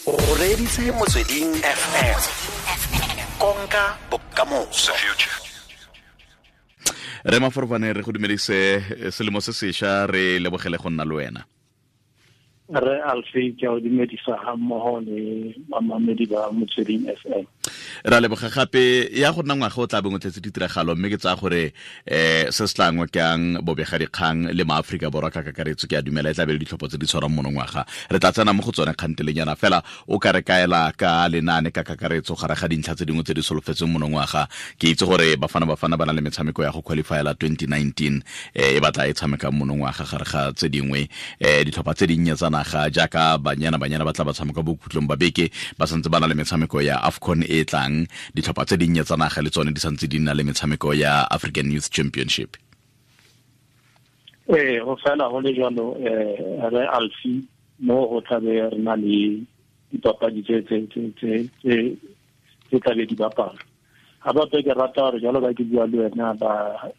O reditse Motsweding FM, konka bokamoso. Re Maforofane, re go dumedise selemo se sesha, re lebogele go nna le wena. Re Alfe, ke a o dumedisa ga mmogo le bamamedi ba Motsweding FM. Ra leboga gape. Ya go nna ngwaga o tla beng o tletse ditiragalo, mme ke tsaya gore se se tla ngokang bobegadikgang le maaforika Borwa ka kakaretso, ke a dumela, e tla be le ditlhopho tse di tshwarang monongwaga. Re tla tsena mo go tsone kgantelenyana fela. O ka re kaela ka lenaane ka kakaretso gare ga dintlha tse dingwe tse di solofetseng monongwaga? Ke itse gore Bafana Bafana ba na le metshameko ya go qualifyela 2019 e batla e tshamekang monongwaga, gare ga tse dingwe. Ditlhopha tse dinnye tsa naga jaaka Banyana Banyana ba tla ba tshameka bokhutlong ba beke, ba santse ba na le metshameko ya AFCON e e tlang. Ditlhopha tse dinnye tsa naga le tsone di santse di nna le metshameko ya African Youth Championship. Ee, go fela go le jalo, re Alfi, mo go tlabe re na le dipapadi tse tlabe di bapala. Ga bape ke rata gore jalo ba ke bua le wena, ba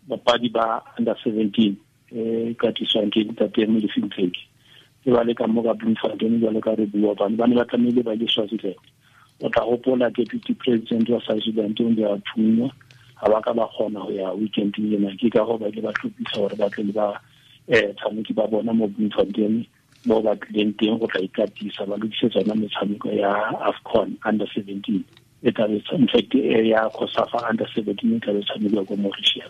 bapadi ba under 17 e katiswang ke ntate Molefi Ntseki ke ba le ka mo ka Bloemfontein. Jalo ka re bua, bane ba ne ba tlamehile ba ile Swaziland. O tla gopola deputy president wa Swaziland o ne a thunywa, ga ba ka ba kgona go ya weekend ena. Ke ka go ba ile ba tlhophisa gore ba tle le ba tshameki ba bona mo Bloemfontein, mo ba tlileng teng go tla ikatisa, ba lokise tsona metshameko ya AFCON under 17 e tlabe, in fact, ya COSAFA under 17 e tlabe tshamekiwa ko Mauritius.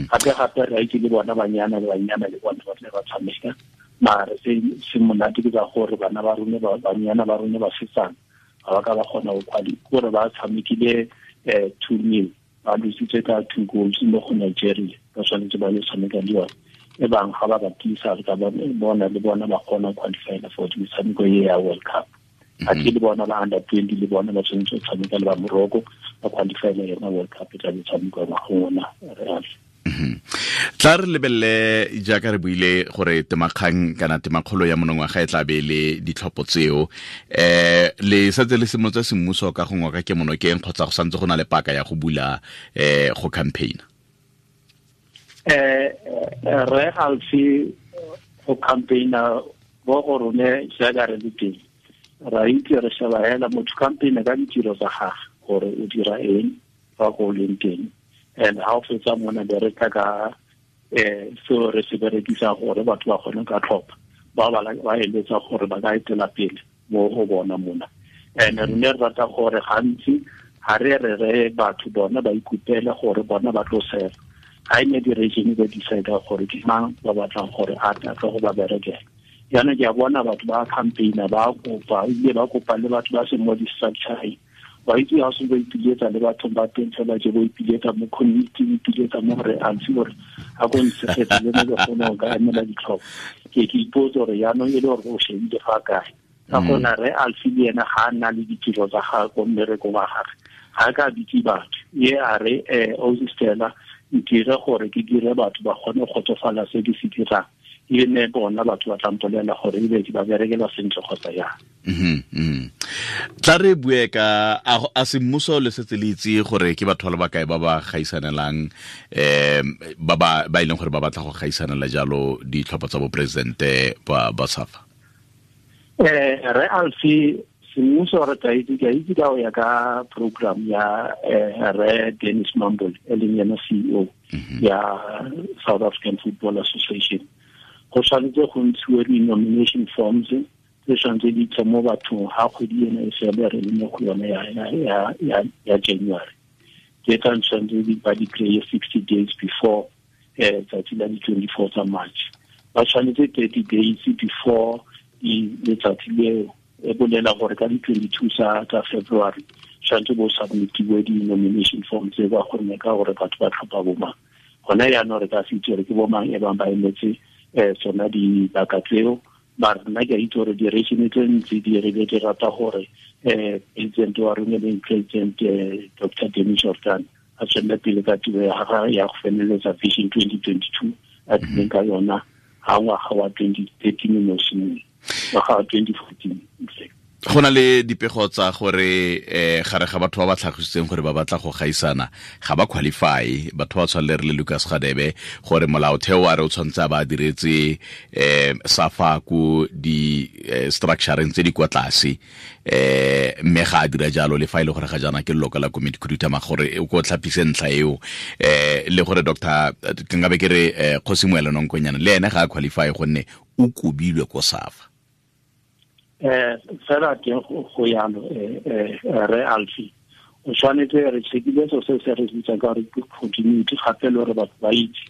Gape gape re itse le bona banyana banyana le bona ba tle ba tshameka. Mare se se monate ke ka gore bana ba rone, banyana ba rone ba setsana, ga ba ka ba kgona go quali, kore ba tshamekile 2-0, ba lositse ka two goals mo go Nigeria. Ba tshwanetse ba le tshameka le yone e bang ga ba ba tiisa, re ka bona le bona ba kgona qualifyela for metshameko e ya World Cup. A ke le bona ba under 20 le bona ba tshwanetse go tshameka le ba Morocco, ba qualifyela yona World Cup e tla be tshamekiwa ngwageng ona, re. Tla re lebelele, jaaka re buile gore temakgang kana temakgolo ya monongwaga e tla be le ditlhopho tseo. Le setse le simolotse semmuso ka go ngoka ke monokeng, kgotsa go santse go na le paka ya go bula go campaign? Re Alfi, go campaigna bo go rone jaaka re le teng, ra itse re sheba hela motho campaign ka ditiro tsa gage, gore o dira eng fa ko leng teng. And ha o fetsa mona, be re tla ka seo re se berekisa gore batho ba kgone ka tlhopha ba ba ba eletsa gore ba ka etela pele mo go bona mona. And re ne re rata gore gantsi ga re re re batho bona ba ikupele gore bona ba tlo sela ga e ne di-region ba decide gore ke mang ba batlang gore a tla go ba berekela. Jaanong ke a bona batho ba campaigna, ba kopa, ebile ba kopa le batho ba seng mo di-structureng. Wa itse ga se ba ipiletsa le bathong ba teng fela je, bo ipiletsa mo community, o ipiletsa mo gore Alfi gore a ko ntshegetse le mo ke kgone go ka emela ditlhopho. Ke ipotse gore jaanong e le gore o shebile fa kae, ka gona re Alfi le ena ga a nna le ditiro tsa gagwe ko mmerekong wa gagwe, ga a ka bitse batho ye a re ausi Stella, ntire gore ke dire batho ba kgone go kgotsofala se ke se dirang, e ne bona batho ba tla mpolela gore ebe ke ba berekela sentle kgotsa yang. Tla re bue ka a semmuso. Le setse le itse gore ke batho ba le bakae ba ba gaisanelang, ba ba e leng gore ba batla go gaisanela jalo ditlhopho tsa boporesidente ba SAFA? Re Alfi, semmuso re tla itse, ke a itse ka go ya ka program ya re Dennis Mumble, e leng yena CEO ya South African Football Association, go tshwanetse go ntshiwe di-nomination forms tse tshwanetse di tle mo bathong ga kgwedi ena e fele, re le mo go yone ya January. Ke tla tshwanetse ba di kry-e 60 days before tsatsi la di-24 tsa March. Ba tshwanetse 30 days before letsatsi leo, e bolela gore ka di-22 tsa February tshwanetse bo submitiwe di-nomination form tse, ba kgonne ka gore batho ba tlhopha bomang. Gona yaanong re ka se itse gore ke bomang e bang ba emetse tsona dibaka tseo. Mara nna ke a itse gore di-region tse ntsi di re di rata gore president wa rone, leng President Dr Danny Jordaan, a tswelele pele ka tiro ya gagwe ya go feleletsa Vision 2022 a tlileng ka yona ga ngwaga wa 2013 o ne o simolola, ngwaga wa 2014 in fact. Go na le dipego tsa gore gare ga batho ba ba tlhagisitseng gore ba batla go gaisana, ga ba qualify, batho ba tshwanele re le Lucas Gadebe, gore molaotheo wa re o tshwanetse a ba diretse SAFA ko di structureng tse di kwa tlase, mme ga a dira jalo le fa e le gore ga jaana ke leloko la komiti khuduthamaga, gore o ko tlhapise ntlha eo, le gore Dr. ke nkabe ke re Kgosi Moelo Nonkonyana le ene ga a qualify gonne o kobilwe ko SAFA. Fela teng go yalo, re Alfi o tshwanetse re checkile so se se re bitsang ka gore ke continuity, gape le gore batho ba itse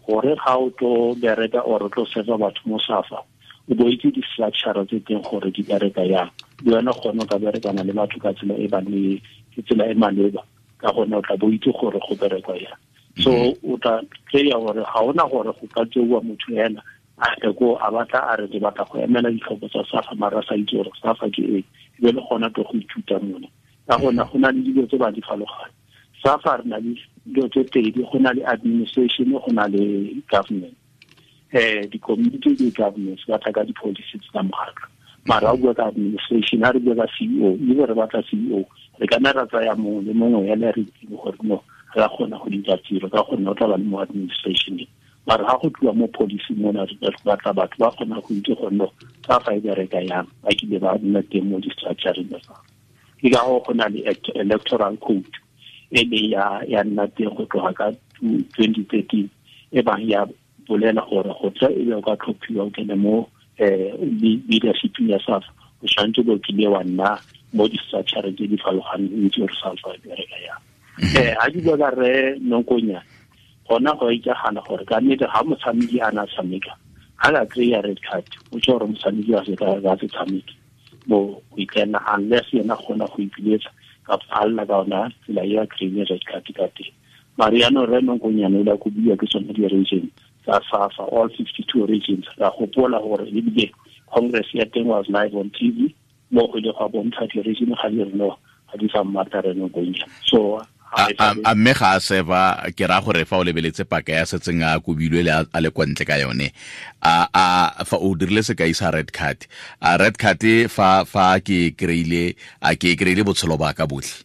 gore ga o tlo bereka or o tlo serva batho mo SAFA, o bo itse di-structure tse teng gore di bereka yang, le wena kgone o ka berekana le batho ka tsela e ba le tsela e maleba, ka gonne o tla bo itse gore go berekwa yang. So o tla kry-a gore ga ona gore go ka tseiwa motho ena a tle ko a batla a re ke batla go emela ditlhopho tsa SAFA, mara a sa itse gore SAFA ke eng, ebe le gona tlo go ithuta mone. Ka gona go na le dilo tse ba di farologane. SAFA re na le dilo tse pedi, go na le administration, go na le government. Di-community le governance ba tla ka di-policies tsa mokgatlho, mara o bua ka administration, ha re bua ka CEO, ebe re batla CEO, re ka nna ra tsaya mongwe le mongwe yena re itseng gore no re a kgona go dira tiro, ka gonne o tla ba le mo administration. Mara ha go tliwa mo policy mona, re batla batho ba kgona go itse gore no SAFA e bereka yang, ba kile ba nna teng mo di-structureng tsa SAFA. Ke ka go na le electoral code e le ya nna teng go tloga ka 2013, e bang ya bolela gore go tla e be o ka tlhophiwa o kene mo leadership ya SAFA, o tshwanetse bo kile wa nna mo di-structureng tse di farologaneng, o itse gore SAFA e bereka yang. Ha ke bua ka re Nonkonyana, gona go itsagala gore ka nnete ga motshameki a na tshameka, ga ka kry-a red card, o tse gore motshameki wa se ka se tshameke mo go ikena, unless yena kgona go ipiletsa kapa a lla ka ona tsela e a kry-ile red card ka teng. Mare jaanong re Nonkonyana o ile a kobiwa ke tsone di-region tsa SAFA, all 52 regions. Ra gopola gore ebile congress ya teng was live on TV, mo go ile gwa bontsha di-region ga di re no, ga di sa mmatla re Nonkonyana. So a mme ga a seva, ke raya gore fa o lebeletse paka ya setseng a kobilwe le a le kwa ntle ka yone, a fa o dirile sekai sa red card, a red card fa ke kry-ile, a ke kry-ile botshelo ba ka botlhe?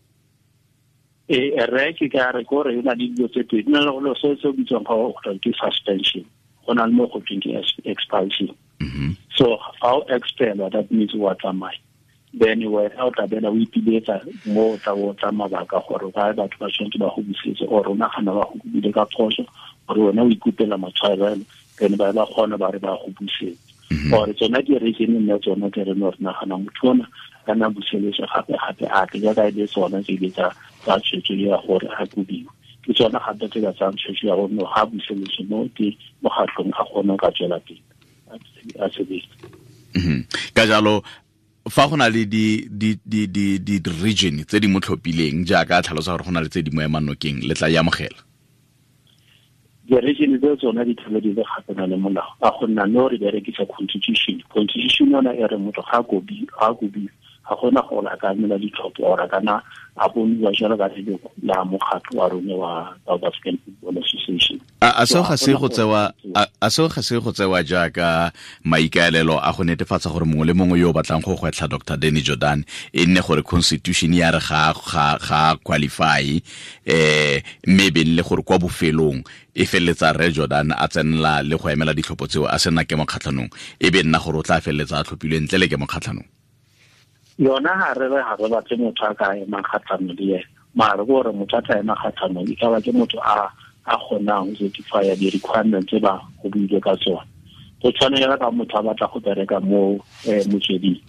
Re ke ka re gore e na le dilo tse pedi, na le go se se bitswang ga go ke suspension, go na le mo go tweng ke expulsion. So fa o expelwa, that means wa tsamaya. Then wena o tla bela o ipiletsa mo o tla o tla mabaka gore ba batho ba tshwanetse ba go busetse, or o nagana ba go kopile ka phoso, gore wena o ikopela matshwarelo, then ba ba kgona ba re ba go busetse. Or tsona di-region nna tsona tse re no re nagana motho ona ka nna buseletswe gape gape a tle, jaaka e le tsona tse ile tsa tshwetso ya gore a kobiwe. Ke tsona gape tse ka tsayang tshwetso ya gore no ga buseletswe mo ke mokgatlhong a kgone ka tswela pele a sebetsa. Ka jalo fa go na le di region tse di mo tlhophileng jaaka a tlhalosa gore go na le tse di mo emang nokeng, le tla e amogela? Di-region tse tsona di tlhole di le kgatlhanong le molao, ka gonne no re berekisa constitution. Constitution yona e re motho ga a kobiwe, ga gona gore a ka emela ditlhopho or a kana a boniwa jalo ka leloko la mokgatlho wa rone wa South African Football Association. A seo ga se go tsewa jaaka maikaelelo a go netefatsa gore mongwe le mongwe yo o batlang go gwetlha Dr. Danny Jordan e nne gore constitution ya re ga qualify, mme e be le gore kwa bofelong e feleletsa Re Jordan a tsenela le go emela ditlhopho tseo a sena kemo kgatlhanong, e be nna gore o tla feleletsa a tlhophilwe ntle le kemo kgatlhanong. Yona ga re re ga re batle motho a ka emang kgatlhanong le ena, mara ke gore motho a tla ema kgatlhanong e ka ba ke motho a kgonang go certify di-requirements tse ba go buile ka tsona. Go tshwanela ka motho a batla go bereka mo motsweding,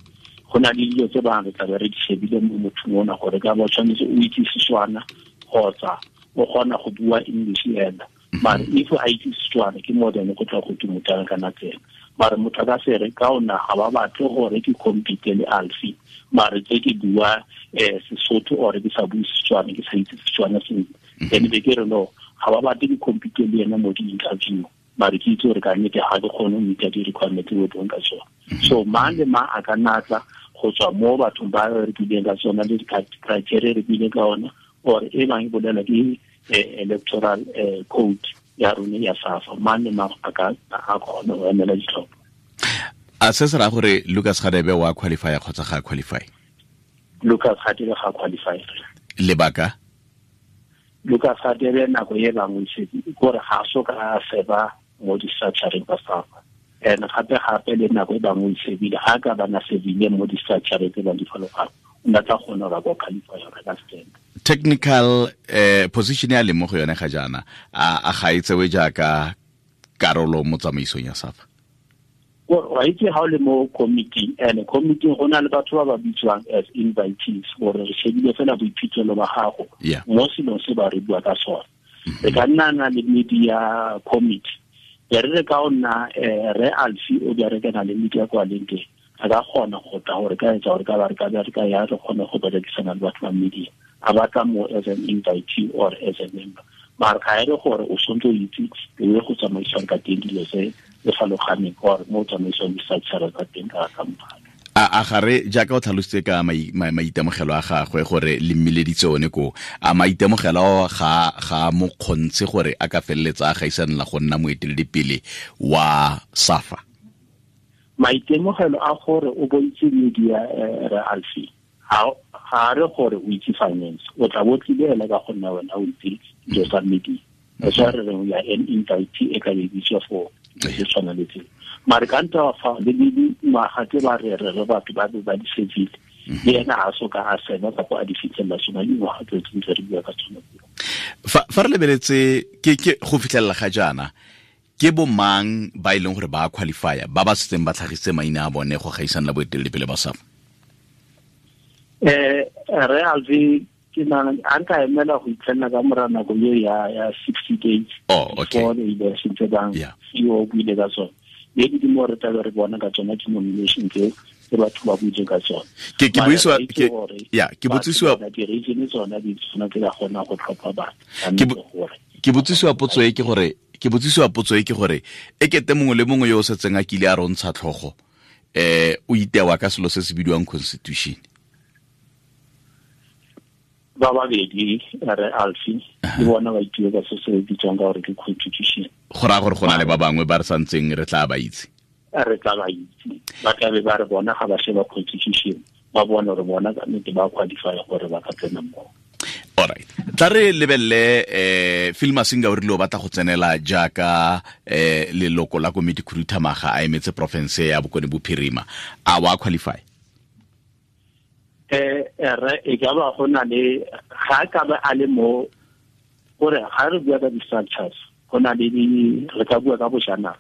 go na le dilo tse bang re tla be re di shebile mo mothong ona gore ka ba tshwanetse o itse Setswana kgotsa o kgona go bua English ena. Mare if a itse Setswana ke more than go tla go ke motho a kana tsena. Mare motho a ka se re ka ona ga ba batle gore ke compete le Alfi, mare tse ke bua Sesotho or ke sa bue Setswana, ke sa itse Setswana sentle, then be ke re no ga ba batle ke compete le ena mo di-interview, mare ke itse gore ka nnete ga ke kgone go meet-a di-requirement tse o buang ka tsona. So mang le mang a ka nna tla go tswa mo bathong ba re buileng ka tsona le di-criteria re buileng ka ona, or e bang e bolela ke electoral code ya rone ya SAFA, mang le mang a ka a kgona go emela ditlhopho. A se se raya gore Lucas Radebe wa qualify kgotsa ga qualify? Lucas Radebe ga qualify. Lebaka? Lucas Radebe nako e bangwe se gore ga so ka seba mo di-structureng tsa SAFA. And gape gape le nako e bangwe e sebile ga ka bana sebile mo di-structure tse ba di falogang o na tla kgona gore a qualify gore ka stand. Technical position ya leng mo go yone ga jaana a ga e tsewe jaaka karolo mo tsamaisong ya SAFA? Wa itse ga o le mo committee, and committee go na le batho ba ba bitswang as invitees gore re shebile fela boiphitlhelo ba gago mo selong se ba re bua ka sone. Re ka nna na le media committee, re re ka o nna re Alfi o berekana le media kwa leng teng, a ka kgona go tla gore ka etsa gore ka ba re ka ba re ka ya re kgone go berekisana le batho ba media, a batla mo as an invitee or as a member. Mara ga e re gore o tshwanetse o itse le go tsamaisang ka teng dilo tse le faloganeng or mo tsamaisong di-structure tsa teng ka mogala. A gare jaaka o tlhalositse ka maitemogelo a gagwe gore le mmileditse one ko, a maitemogelo ga mo kgontshe gore a ka feleletsa a gaisanela go nna moeteledipele wa SAFA? Maitemogelo a gore o boitse media re Alfi, ga re gore o itse finance, o tla bo tlile ela ka go nna wena o itse dilo tsa media. That's why re reng ya an invitee e ka be bitswa for se tshwana le tseo. Mare ka nta fa le dingwaga tse ba re re batho ba be ba di setsile, le ena ga so ka a sena kapa a di fitlhelela sona dingwaga tse tse re bua ka tsona. Fa re lebeletse ke go fitlhelela ga jaana, ke bo mang ba e leng gore ba qualifya ba ba setseng ba tlhagisitse maina a bone go gaisana le boeteledipele ba SAFA? Re Alfi ke nana a nka emela go itlhelela ka mora nako eo ya 60 days. Oh, okay. Before the election tse bang CEO o buile ka tsone. Maybe di mo re tla re bona ka tsona di-nomination tseo tse batho ba buile ka tsone. Ke buisiwa ke ya ke botsisiwa di-region tsona di tsona tse ka kgona go tlhopha batho. Ke botsisiwa potso e ke gore ke botsisiwa potso e ke gore e kete mongwe le mongwe yo o setseng a kile a rontsha tlhogo o itewa ka selo se se bidiwang constitution. Ba babedi re Alfi le bona ba itiwe ka se se bitswang ka gore ke constitution. Go raya gore go na le ba bangwe ba re santseng re tla ba itse. Re tla ba itse, ba tla be ba re bona ga ba sheba constitution ba bona gore bona ka nnete ba qualify gore ba ka tsena mo. Alright, tla re lebelele Phil Masinga o rile o batla go tsenela jaaka leloko la komiti khuduthamaga a emetse province ya Bokone Bophirima, a wa qualify? Re e ka ba go na le ga ka ba a le mo gore ga re bua ka di-structures go na le re ka bua ka bojanala.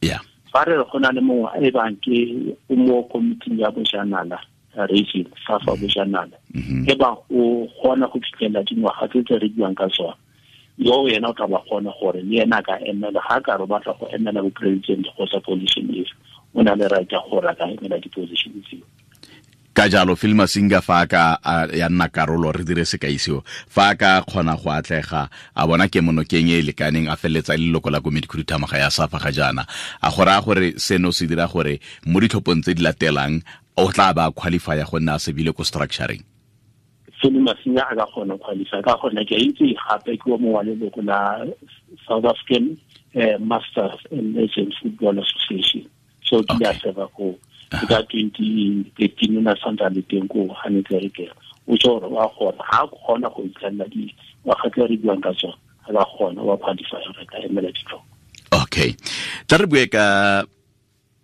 Yeah. Fa re go na le mongwe e bang ke o mo committee ya bojanala region SAFA bojanala, e bang o kgona go fitlhelela dingwaga tse tse re buang ka tsona, yo yena o tla ba kgona gore le ena a ka emela ga ka re batla go emela bo president kgotsa position efe, o na le right ya gore a ka emela di-position tseo. Ka jalo Phil Masinga fa ka ya nna karolo re dire sekai seo, fa ka kgona go atlega a bona ke monokeng e lekaneng a feleletsa leloko la komiti khuduthamaga ya SAFA ga jaana, a go raya gore seno se dira gore mo ditlhophong tse di latelang o tla ba qualifya go nna a sebile ko structuring? Phil Masinga a ka kgona qualify ka gone ke itse gape ke o mongwe wa leloko la South African Masters and Legends Football Association, so ke a serva ko ka 2013 na santse le teng ko ga ne tle re ke o tso gore wa kgona ga kgona go itlhelela dingwaga tse re buang ka tsone, ga ba kgona wa qualify re ka emela ditlhopho. Okay, tla re bue ka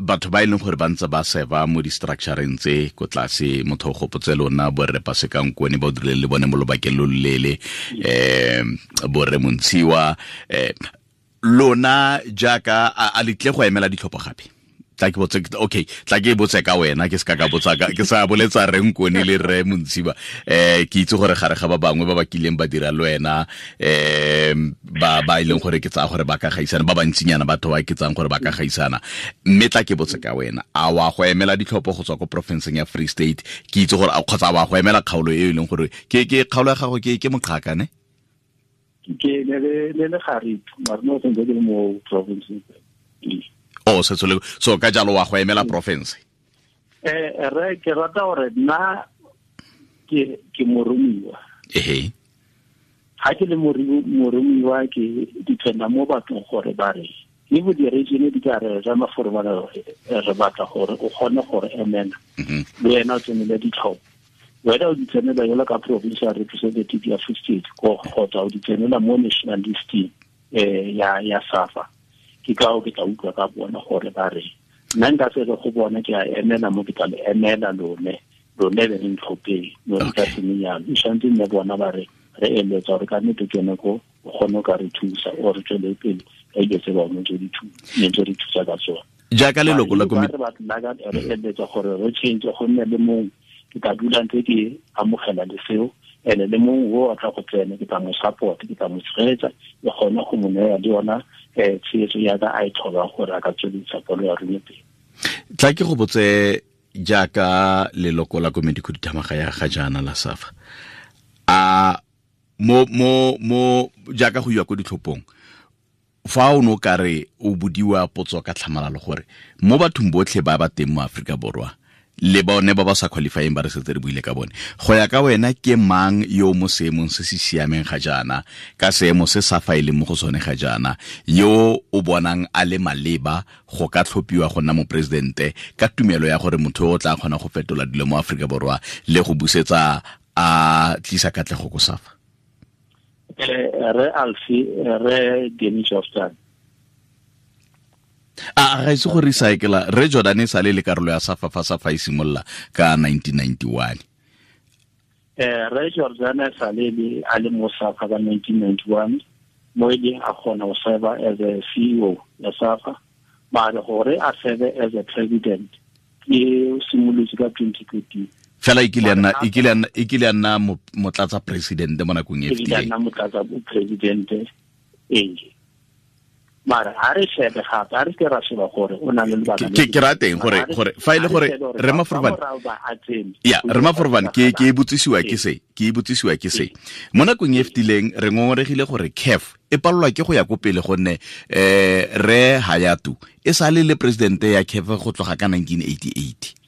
batho ba e leng gore ba ntse ba serva mo di-structureng tse ko tlase. Motho o gopotse lona borre Paseka Nkone ba o dirile le bone mo lobakeng lo loleele, borre Montshiwa, lona jaaka a letle go emela ditlhopho gape? Tla ke botse, okay, tla ke botse ka wena, ke se ka botsa ka ke sa boletsa re Nkone le re Montshiwa. Ke itse gore gare ga ba bangwe ba ba kileng ba dira le wena, ba e leng gore ke tsaya gore ba ka gaisana, ba bantsinyana batho ba ke tsang gore ba ka gaisana. Mme tla ke botse ka wena, a wa go emela ditlhopho go tswa ko provinceng ya Free State? Ke itse gore kgotsa wa go emela kgaolo e e leng gore ke kgaolo ya gago ke Moqhaka ne? Ke le le Gariep, mara no sentse ke le mo provinceng. Oh, so ka jalo wa go emela province? Re ke rata gore nna ke moromiwa. Ehe. Ga ke le moromiwa ke dependa mo bathong gore ba re le bo di-region di ka re re maforomana re batla gore o kgone gore emela le wena o tsenele ditlhopho, wena o di tsenela jalo ka provincial representative ya Free State kgotsa o di tsenela mo national listing ya SAFA. Ke ka o ke tla utlwa ka bona gore ba re nna nka se re go bona ke a emela mo ke tla le emela lone lone be re ntlhopheng no re ka semenyana e tshwanetse nne bona ba re re eletsa gore ka nnete ke yone ko o kgone o ka re thusa o re tswele pele ka dilo tse bangwe tse di thusa ka tsone. Jaaka leloko la komiti re batla re eletsa gore re change go nne le mongwe ke tla dula ntse ke amogela le seo ene le mongwe o a tla go tsena ke tla mo support ke tla mo tshegetsa le gone go mo neya le yona tshegetso ya ka a e tlhokang gore a ka tsweledisa polo ya rona pele. Tla ke go botse jaaka leloko la komiti khuduthamaga ya ga jaana la SAFA, a mo jaaka go iwa ko ditlhophong, fa o no ka re o bodiwa potso ka tlhamalalo gore mo bathong botlhe ba ba teng mo Aforika Borwa le bone ba ba sa qualifying ba re setse re buile ka bone, go ya ka wena ke mang yo mo seemong se se siameng ga jaana, ka seemo se sa fa e leng mo go sone ga jaana, yo o bonang a le maleba go ka tlhophiwa go nna moporesidente ka tumelo ya gore motho o tla kgona go fetola dilo mo Aforika Borwa le go busetsa a tlisa katlego ko SAFA? Re Alfi, re Danny Jordaan. A ga ise go recycla re Jordan e sale le karolo ya SAFA fa SAFA e simolola ka 1991. Re Jordan e sale le a le mo SAFA ka 1991 mo e leng a kgona go serve as a CEO ya SAFA, mare gore a serve as a president ke simolotse ka 2013. Fela e kile ya nna motlatsa president mo nakong e fetileng. E kile ya nna motlatsa president ee. Mara ha re shebe gape, ha re ke ra sheba gore o na le lebaka. Ke ra teng gore fa ile gore re Maforobane. Ya, re Maforobane ke e botsisiwa ke se, ke e botsisiwa ke se. Mo nakong e fetileng re ngongoregile gore CAF e palelwa ke go ya ko pele gonne re Hayatu e sale le president ya CAF go tloga ka 1988.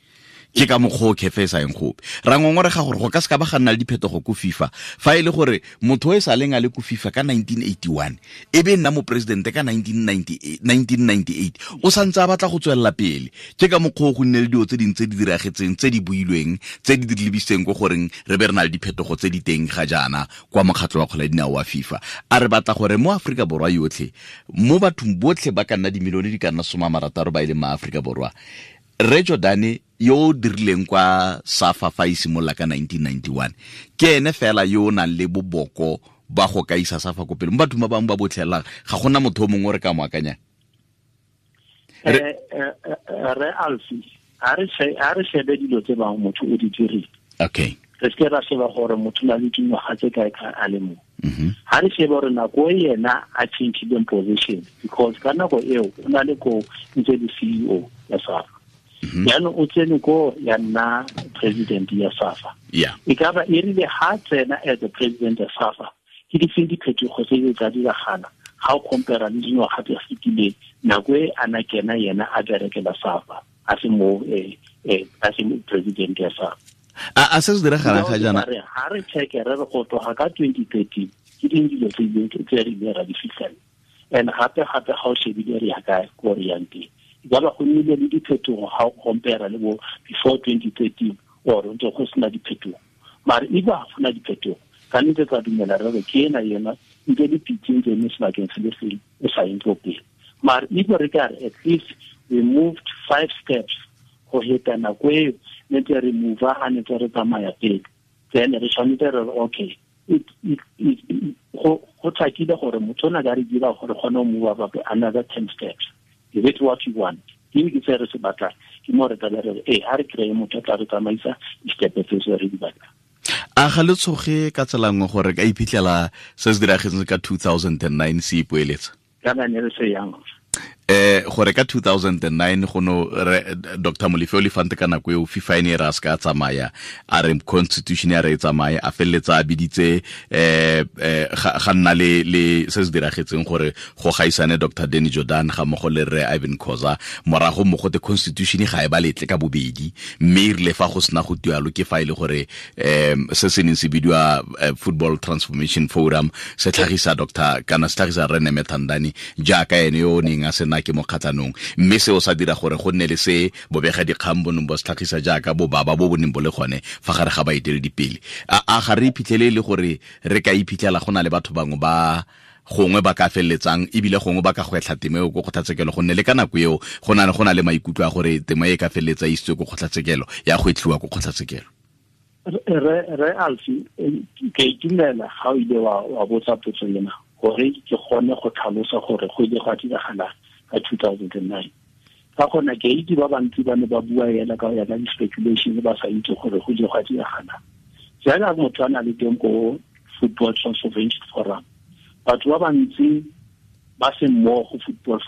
Ke ka mokgwa o CAF e sa eng gope. Ra ngongorega gore go ka se ka ba ga nna le diphetogo ko FIFA fa e le gore motho o e sa leng a le ko FIFA ka 1981 e be nna moporesidente ka 1998 o santse a batla go tswelela pele. Ke ka mokgwa o go nne le dilo tse dingwe tse di diragetseng, tse di builweng, tse di lebisitseng ko goreng re be re na le diphetogo tse di teng ga jaana kwa mokgatlho wa kgwele ya dinao wa FIFA. A re batla gore mo Aforika Borwa yotlhe, mo bathong botlhe ba ka nna dimilione di ka nna 60 ba e leng ma Aforika Borwa, re Jordane yo o dirileng kwa SAFA fa e simolola ka 1991 ke ene fela yo o nang le boboko ba go ka isa SAFA ko pele. Mo bathong ba bangwe ba botlhelang ga gona motho o mongwe o re ka mo akanyang. Re Alfi, ha re shebe dilo tse bang motho o di dirile. Okay. Re se ra sheba gore motho na le dingwaga tse kae ka a le mo. Ha re shebe gore nako e yena a change-ileng position, because ka nako eo o na le ko ntse le CEO ya SAFA. Jaanong o tsene ko ya nna president ya SAFA. E ka ba e rile ha tsena as a president ya SAFA, ke difeng diphetogo tse di tla diragala ga o compare le dingwaga tse fetileng nako e a na kena yena a berekela SAFA a se mo a se president ya SAFA. A se se diragalang ga jaana? Ha re check re re go tloga ka 2013 ke ding dilo tse re ileng ra di fitlhela. And gape gape ga o shebile re ya kae ko re yang teng. Ba go nnile le diphetogo ga o compare le bo before 2013 or ntse go sena diphetogo. Mare e ba go na diphetogo ka nnete tsa dumela re re ke ena yena ntse di pitse ntse mo sebakeng se le sengwe e sa eng ko pele. Mare e re ka re at least we moved 5 steps go heta nako eo ne ntse re move a ne ntse re tsamaya pele. Then re tshwanetse re okay go tlhakile gore motho o na ka re dira gore kgone go move up another 10 steps. Is it what you want? Ke ke se re se batlang. Ke mo re tla re eh ha re kry motho a tla re tsamaisa di-step tse re di batlang. A ga le tshoge ka tsela nngwe gore ka iphitlhela se se diragetseng ka 2009 se ipoeletsa? Kana ne re se yang. Gore ka 2009 go no Dr. Molefe Olifant ka nako eo FIFA e ne ra se ka tsamaya, a re constitution ya re e tsamaye, a feleletsa a biditse ga nna le se se diragetseng gore go gaisane Dr. Danny Jordaan ga mmogo le Rre Ivan Khoza, morago mo gote constitution ga e ba letle ka bobedi, mme e rile fa go sena go tualo ke fa e le gore se se neng se bidiwa Football Transformation Forum se tlhagisa Dr. kana se tlhagisa Rre Nemethandani jaaka ene yo o neng a sena ke mo kgatlhanong, mme seo sa dira gore go nne le se bobega dikgang bo neng bo se tlhagisa jaaka bobaba bo bo neng bo le gone fa gare ga baeteledipele. A ga re iphitlhele e le gore re ka iphitlhela go na le batho bangwe ba Gongwe ba ka feleletsang ebile gongwe ba ka gwetlha temo eo ko kgotlatshekelo, gonne le ka nako eo go na le maikutlo a gore temo e ka feleletsa e isitswe ko kgotlatshekelo, ya gwetlhiwa ko kgotlatshekelo. Re Alfi, ke itumela ga o ile wa botsa potso ena gore ke kgone go tlhalosa gore go ile gwa diragala ka 2009. Ka gona ke itse ba bantsi ba ne ba bua ela ka ya ka di-speculation ba sa itse gore go ile gwa diragala. Jaaka motho a na le teng ko Football Transformation Forum, batho ba bantsi ba se mmogo Football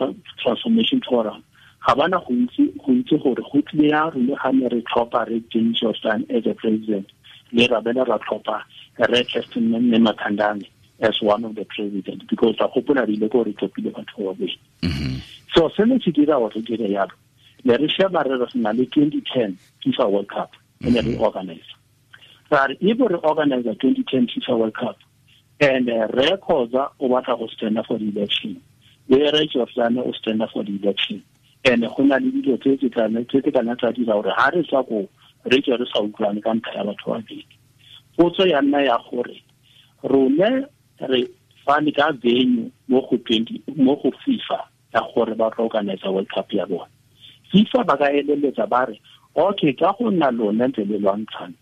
Transformation Forum ga bana go itse gore go tlile ya rone ga ne re tlhopha re James Jordaan as a president, le ra bela ra tlhopha re Kirsten Nematandani as one of the president, because ra gopola re ile ko re tlhophile batho ba babedi. So se ne se dira gore re dire yalo, ne re sheba re re na le 2010 FIFA World Cup e ne re organize. Ra re if re organize 2010 FIFA World Cup and re Khoza o batla go stand for the election, le re Jordaan o stand for the election, and go na le dilo tse tse kana tsa dira gore ha re tswa ko re tswe re sa utlwane ka ntlha ya batho ba babedi. Potso ya nna ya gore rone re fane ka venue mo go FIFA ya gore ba tlo organize World Cup ya bona. FIFA ba ka eleletsa ba re okay, ka go nna lone ntse le lwantshana,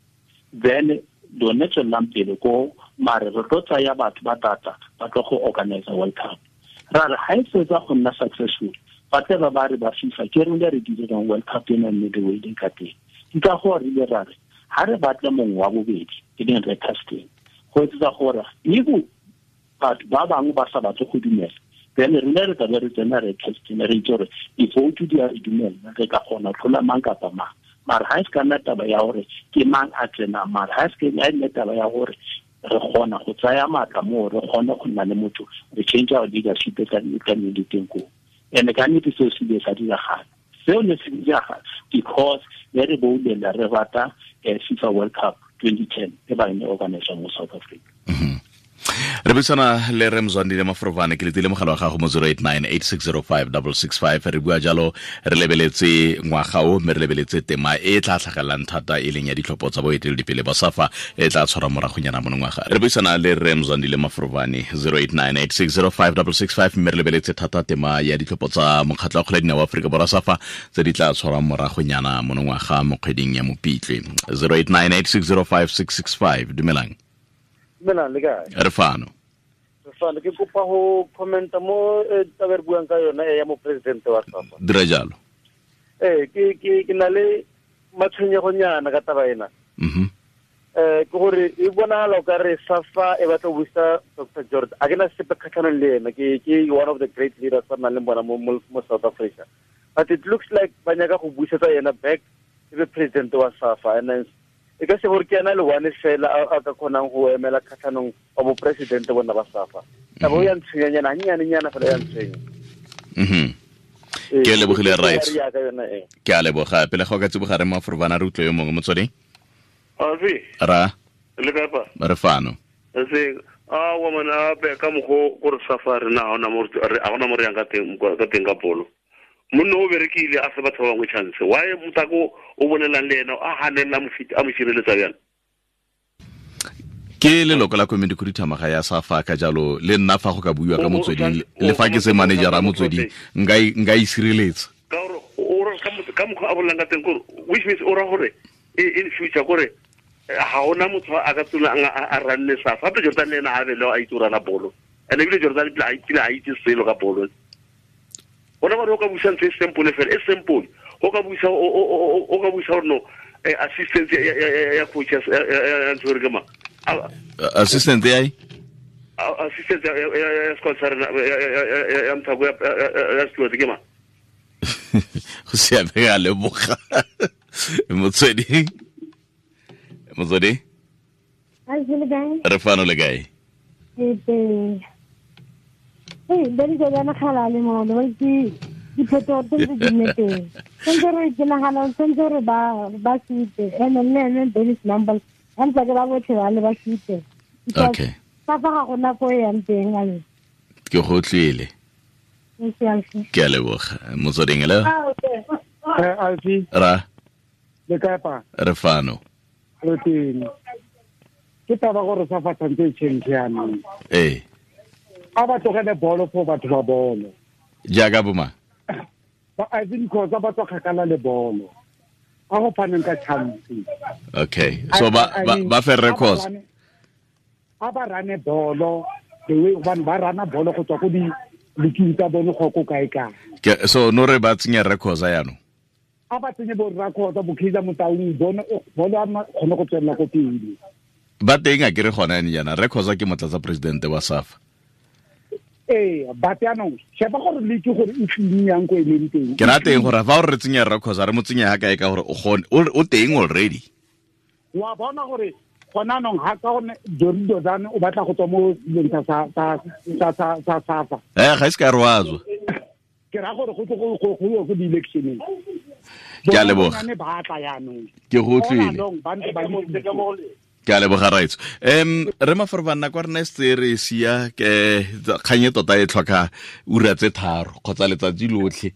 then lone tswelelang pele ko mare re tlo tsaya batho ba tata ba tlo go organize World Cup. Ra re ha e fetsa go nna successful, ba tle ba re ba FIFA ke rone re dirang World Cup ena mme the way e ka teng. Ke ka go re ile ra re ha re batle mongwe wa bobedi e leng re casting, go etsa gore ego batho ba bangwe ba sa batle go dumela, then re ne re tla re tsena re casting re itse gore di-vote di a re dumela, re ka kgona tlhola mang kapa mang. Mara ha e se ka nna taba ya gore ke mang a tsenang, mara ha e se ka nna taba ya gore re kgona go tsaya maatla moo, re kgone go nna le motho, re change our leadership ka le teng koo. And ka nnete seo se ile sa diragala. Seo ne se diragala because ne re boulela re rata FIFA World Cup 2010 e ba ne organize mo South Africa. Re buisana le Re Mzwandile Mafrovane, ke letile mogala wa gago mo 0898605665. Re bua jalo re lebeletse ngwaga o, mme re lebeletse tema e tla tlhagelelang thata e leng ya ditlhopho tsa boeteledipele ba SAFA e tla tshwara moragonyana monongwaga. Re buisana le Re Mzwandile Mafrovane 0898605665, mme re lebeletse thata tema ya ditlhopho tsa mokgatlho wa kgwele ya dinao wa Aforika Borwa SAFA tse di tla tshwarwang moragonyana monongwaga mo kgweding ya Mopitlwe. 0898605665. Dumelang. Dumelang, le kae? Re fano. Re fano, ke kopa go commenta mo taba re buang ka yona ya mo president wa SAFA. Dira jalo. Ke na le matshwenyegonyana ka taba ena. Ke gore e bonagala o ka re SAFA e batla go busa Dr. George. A ke na sepe kgatlhanong le ena, ke one of the great leaders ba nang le bona mo South Africa. But it looks like ba nyaka go busetsa yena back e be president wa SAFA, and then e ka se gore ke ena le one fela a ka kgonang go emela kgatlhanong wa boporesidente bona ba SAFA. Taba o ya ntshwenyanyana gannyane-nyana fela ya ntshwenya. Ke lebogile right. Ke a leboga. Pele ga o ka tsiboga re Mafrovana re utlwe yo mongwe motsweding. Ra. Le kae pa? Re fano. Se a wa mana be ka mogo gore SAFA re na ona mo re a ona mo re yang ka teng ka bolo. Monna o berekile a se batho ba bangwe chance. Why motako o bolelang le ena a hanella mofiti a mo sireletsa bjang? Ke leloko la komiti khuduthamaga ya SAFA, ka jalo le nna fa go ka buiwa ka motsweding, le fa ke se manager a motsweding nka e sireletsa. Ka gore o re ka mokgwa a bolelang ka teng gore which means o ra gore in future gore ga ona motho a ka tsona a ranne SAFA. Gape Jordaan le ena a be le a itse o rana bolo, and ebile Jordaan pele a itse selo ka bolo. Ona ba re o ka busa ntho e simple fela, e simple. O ka busa o ka busa gore no assistant ya coach ya ntho re ke ma assistant ya assistant ya squad sa rena ya mthako ya squad ke ma. Go siame, a leboga. Motswedi. Re fano le kae? Ke teng. Hey, ba di jana khala le mo le ke diphetogo tse di nne teng. Sentse re ke nagana sentse re ba sute ene le ene Dennis Numble ba ntse ke ba botlhe ba le ba sute. Okay. Fa ga gona ko e yang teng ale. Ke go tlile. Ke a leboga. Motsweding le? Alfi. Ra. Le kae pa? Re fano. Re teng. Ke taba gore SAFA tshwanetse e change jaanong. Ee. A ba tlogele bolo for batho ba bolo. Jaaka boma. Ba Irvin Khoza ba tswa kgakala le bolo. A go phaneng ka chance. Okay. So ba fe records. A ba rane bolo the way ba rana bolo go tswa go di leking tsa bone go ko kae kae. So no re ba tsenya records ya no. A ba tsenye bo records bo Kaizer Motaung bone bolo a kgone go tswella ko pele. Ba teng a ke re gona ene yana records ke motlatsa president wa SAFA. Ba jaanong sheba gore le ke gore e tleng yang ko e leng teng. Ke ra teng gore fa o re tsenya records re mo tsenya ha kae ka gore o gone o teng already. Wa bona gore gona nong ha ka gone Dori Dozane o batla go tswa mo dilong tsa SAFA. Ga se ka re wa tswa. Ke ra gore go go go go go di-electioneng. Ke a leboga. Ke go utlwile. Ke a leboga raitso. Re mafarobana kwa rena se re sia ke kganye tota e tlhoka ura tse 3 kgotsa letsatsi lotlhe.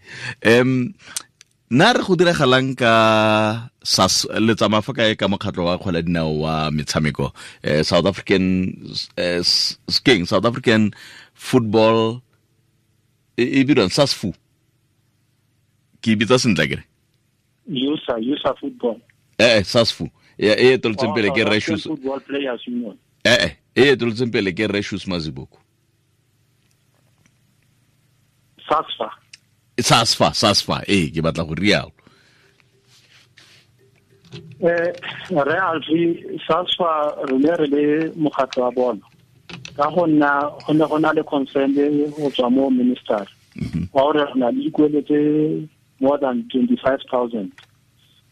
Nna re go diragalang ka SAS le tsamaya fa kae ka mokgatlo wa kgwele dinao wa metshameko South African South African Football e bidiwang SASFU. Ke bitsa sentle kere? USA football. SASFU. E toltseng pele ke Reshus Football Players Union. E toltseng pele ke Reshus Maziboko. SASFA ke batla go rialo. Re alfi SASFA re le mokgatlo wa bona. Ka go nna go ne go na le concern go tswa mo minister. Wa gore re na le dikolo tse more than 25,000.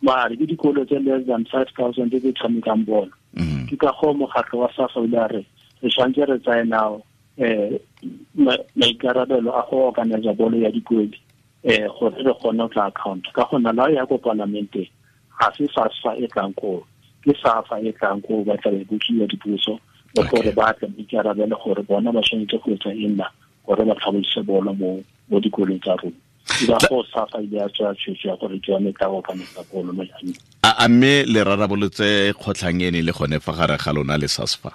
Mare ke dikolo tse less than 5,000 tse di tshamekang bolo. Ke ka go mokgatlo wa SAFA o ile a re re tshwanetse re tsaye nao maikarabelo a go organize bolo ya dikwedi gore re kgone go tla account. Ka go nna la ya ko parlamenteng ga se SASFA e tlang koo, ke SAFA e tlang koo ba tla be botsiwa dipuso le gore ba tle maikarabelo gore bona ba tshwanetse go etsa eng na gore ba tlhabolose bolo mo dikolong tsa rona. A mme le rarabolotse kgotlhang ene le gone fa gare ga lona le SASFA?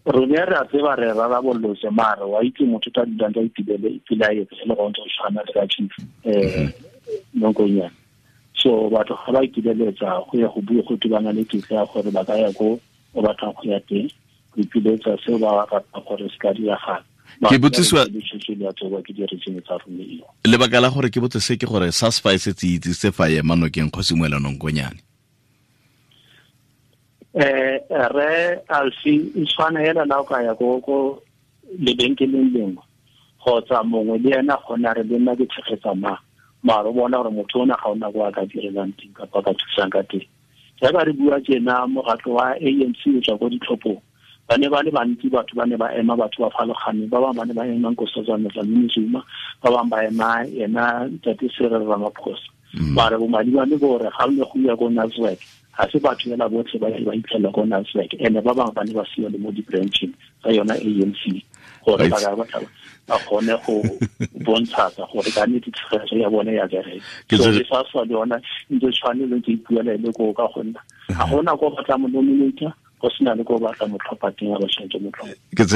Rone re a tseba re rarabolotse mare wa itse motho ta dulang ka itibele ipelaetse le go ntse tshwana le ka chief Nonkonyane. So batho ga ba ikibeletsa go ya go bua go tibana le kitla ya gore ba ka ya ko o batlang go ya teng go ipiletsa seo ba ratang gore se ka diragala. Ke botsisiwa lebaka la gore ke botse se ke gore SASFA e setse itse se fa ema nokeng Kgosi Moelo Nonkonyane. Re alfi e tshwana hela la o ka ya ko lebenkeleng lengwe kgotsa mongwe le ena gona re le nna ke tshegetsa ma mare o bona gore motho ona ga ona ko a ka direlang teng kapa ka thusang ka teng. Jaaka re bua tjena mokgatlo wa ANC o tswa ko ditlhophong ba ne ba le bantsi batho ba ne ba ema batho ba farologaneng ba bangwe ba ne ba ema Nkosazana Dlamini Zuma ba bangwe ba ema ena Ntate Cyril Ramaphosa. Mare bomadibane gore ga ne go ya ko Nasrec ga se batho fela botlhe ba ba itlhela ko Nasrec ene ba bangwe ba ne ba siwa le mo di-brancheng tsa yona ANC gore ba ka ba kgone go bontsha gore ka nnete tshegetso ya bone ya bereka. So le SASFA le yona ntse tshwane le ntse ipuela le ko ka gonna ga gona ko batla mo nominator go sena le ko batla motlhopha teng a ba tshwanetse motlhopha. Ke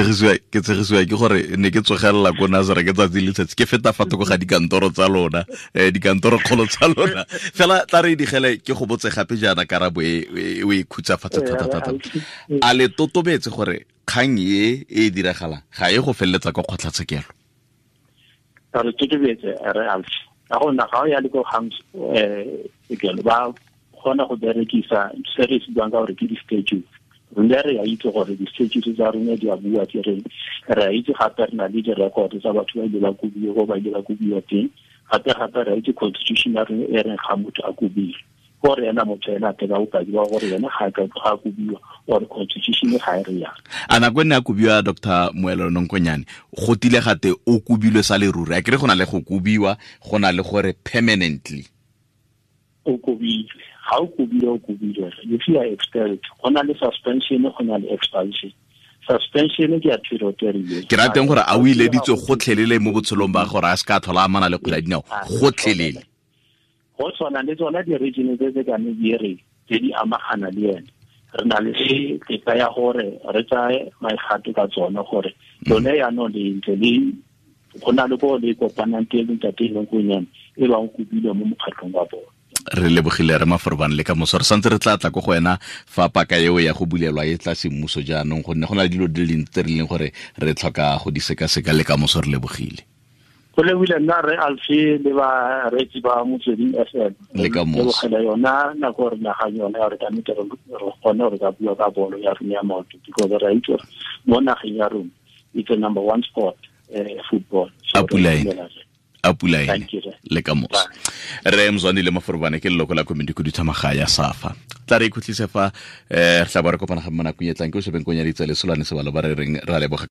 tshegisiwa ke gore ne ke tsogelela ko Nazareth ke tsatsi le letsatsi ke feta fa thoko ga dikantoro tsa lona dikantoro kgolo tsa lona fela tla re digele ke go botse gape jaana karabo e o e khutsafatsa thata. A le totobetse gore kgang e diragalang ga e go feleletsa kwa kgotlatshekelo? Re totobetse re alfi ka go nna ga o ya le ko kgang sekelo ba kgona go berekisa se re se buang ka gore ke di-statute. Rona re a itse gore di-statute tsa rona di a bua ke reng. Re a itse gape re na le di-record tsa batho ba ile ba kobiwa ko ba ile ba kobiwa teng. Gape re a itse constitution ya rona e reng ga motho a kobile gore ena motho ena a teka bopaki ba gore ena ga a kobiwa or constitution ga e re yang. A nako e ne a kobiwa Dr. Moelo Nonkonyane go tile gate o kobilwe sa leruri a kere go na le go kobiwa go na le gore permanently o kobilwe. Ga o kobilwe o kobilwe. If you are expelled go na le suspension go na le expulsion. Suspension ke ya period e rileng. Ke rateng gore a o ileditswe gotlhelele mo botshelong ba gore a se ka tlhola amana le kgwele ya dinao gotlhelele. Go tshwana le tsona di-region tse tse kane di re tse di amagana le ene. Re na le tetla ya gore re tsaye maigato ka tsone gore Lone yaanong le ntse le go na le ko le kopanang teng ntate Nonkunyane e ba o kopile mo mokgatlhong wa bone. Re lebogile re Maforobane le ka moso re santse re tla tla ko go wena fa paka eo ya go bulelwa e tla semmuso jaanong, gonne go na le dilo di le dintsi tse re leng gore re tlhoka go di sekaseka. Le ka moso re lebogile. Go lebile nna re Alfi le bareetsi ba Motsweding FM. Le ka moso. Lebogela yona nako re nagang yona ya gore ka nnete re kgone gore ka bua ka bolo ya rona ya maoto, because re a itse gore mo nageng ya rona it's a number one sport, football. So A pula ene. A pula ene. Thank you, sir. Le ka moso. Re Mzwandile Maforobane ke leloko la komiti khuduthamaga ya SAFA. Tla re ikhutlise fa, re tla bo re kopana gape mo nakong e tlang. Ke o shebeng konyaditse le Solane Sebalo ba re reng ra leboga.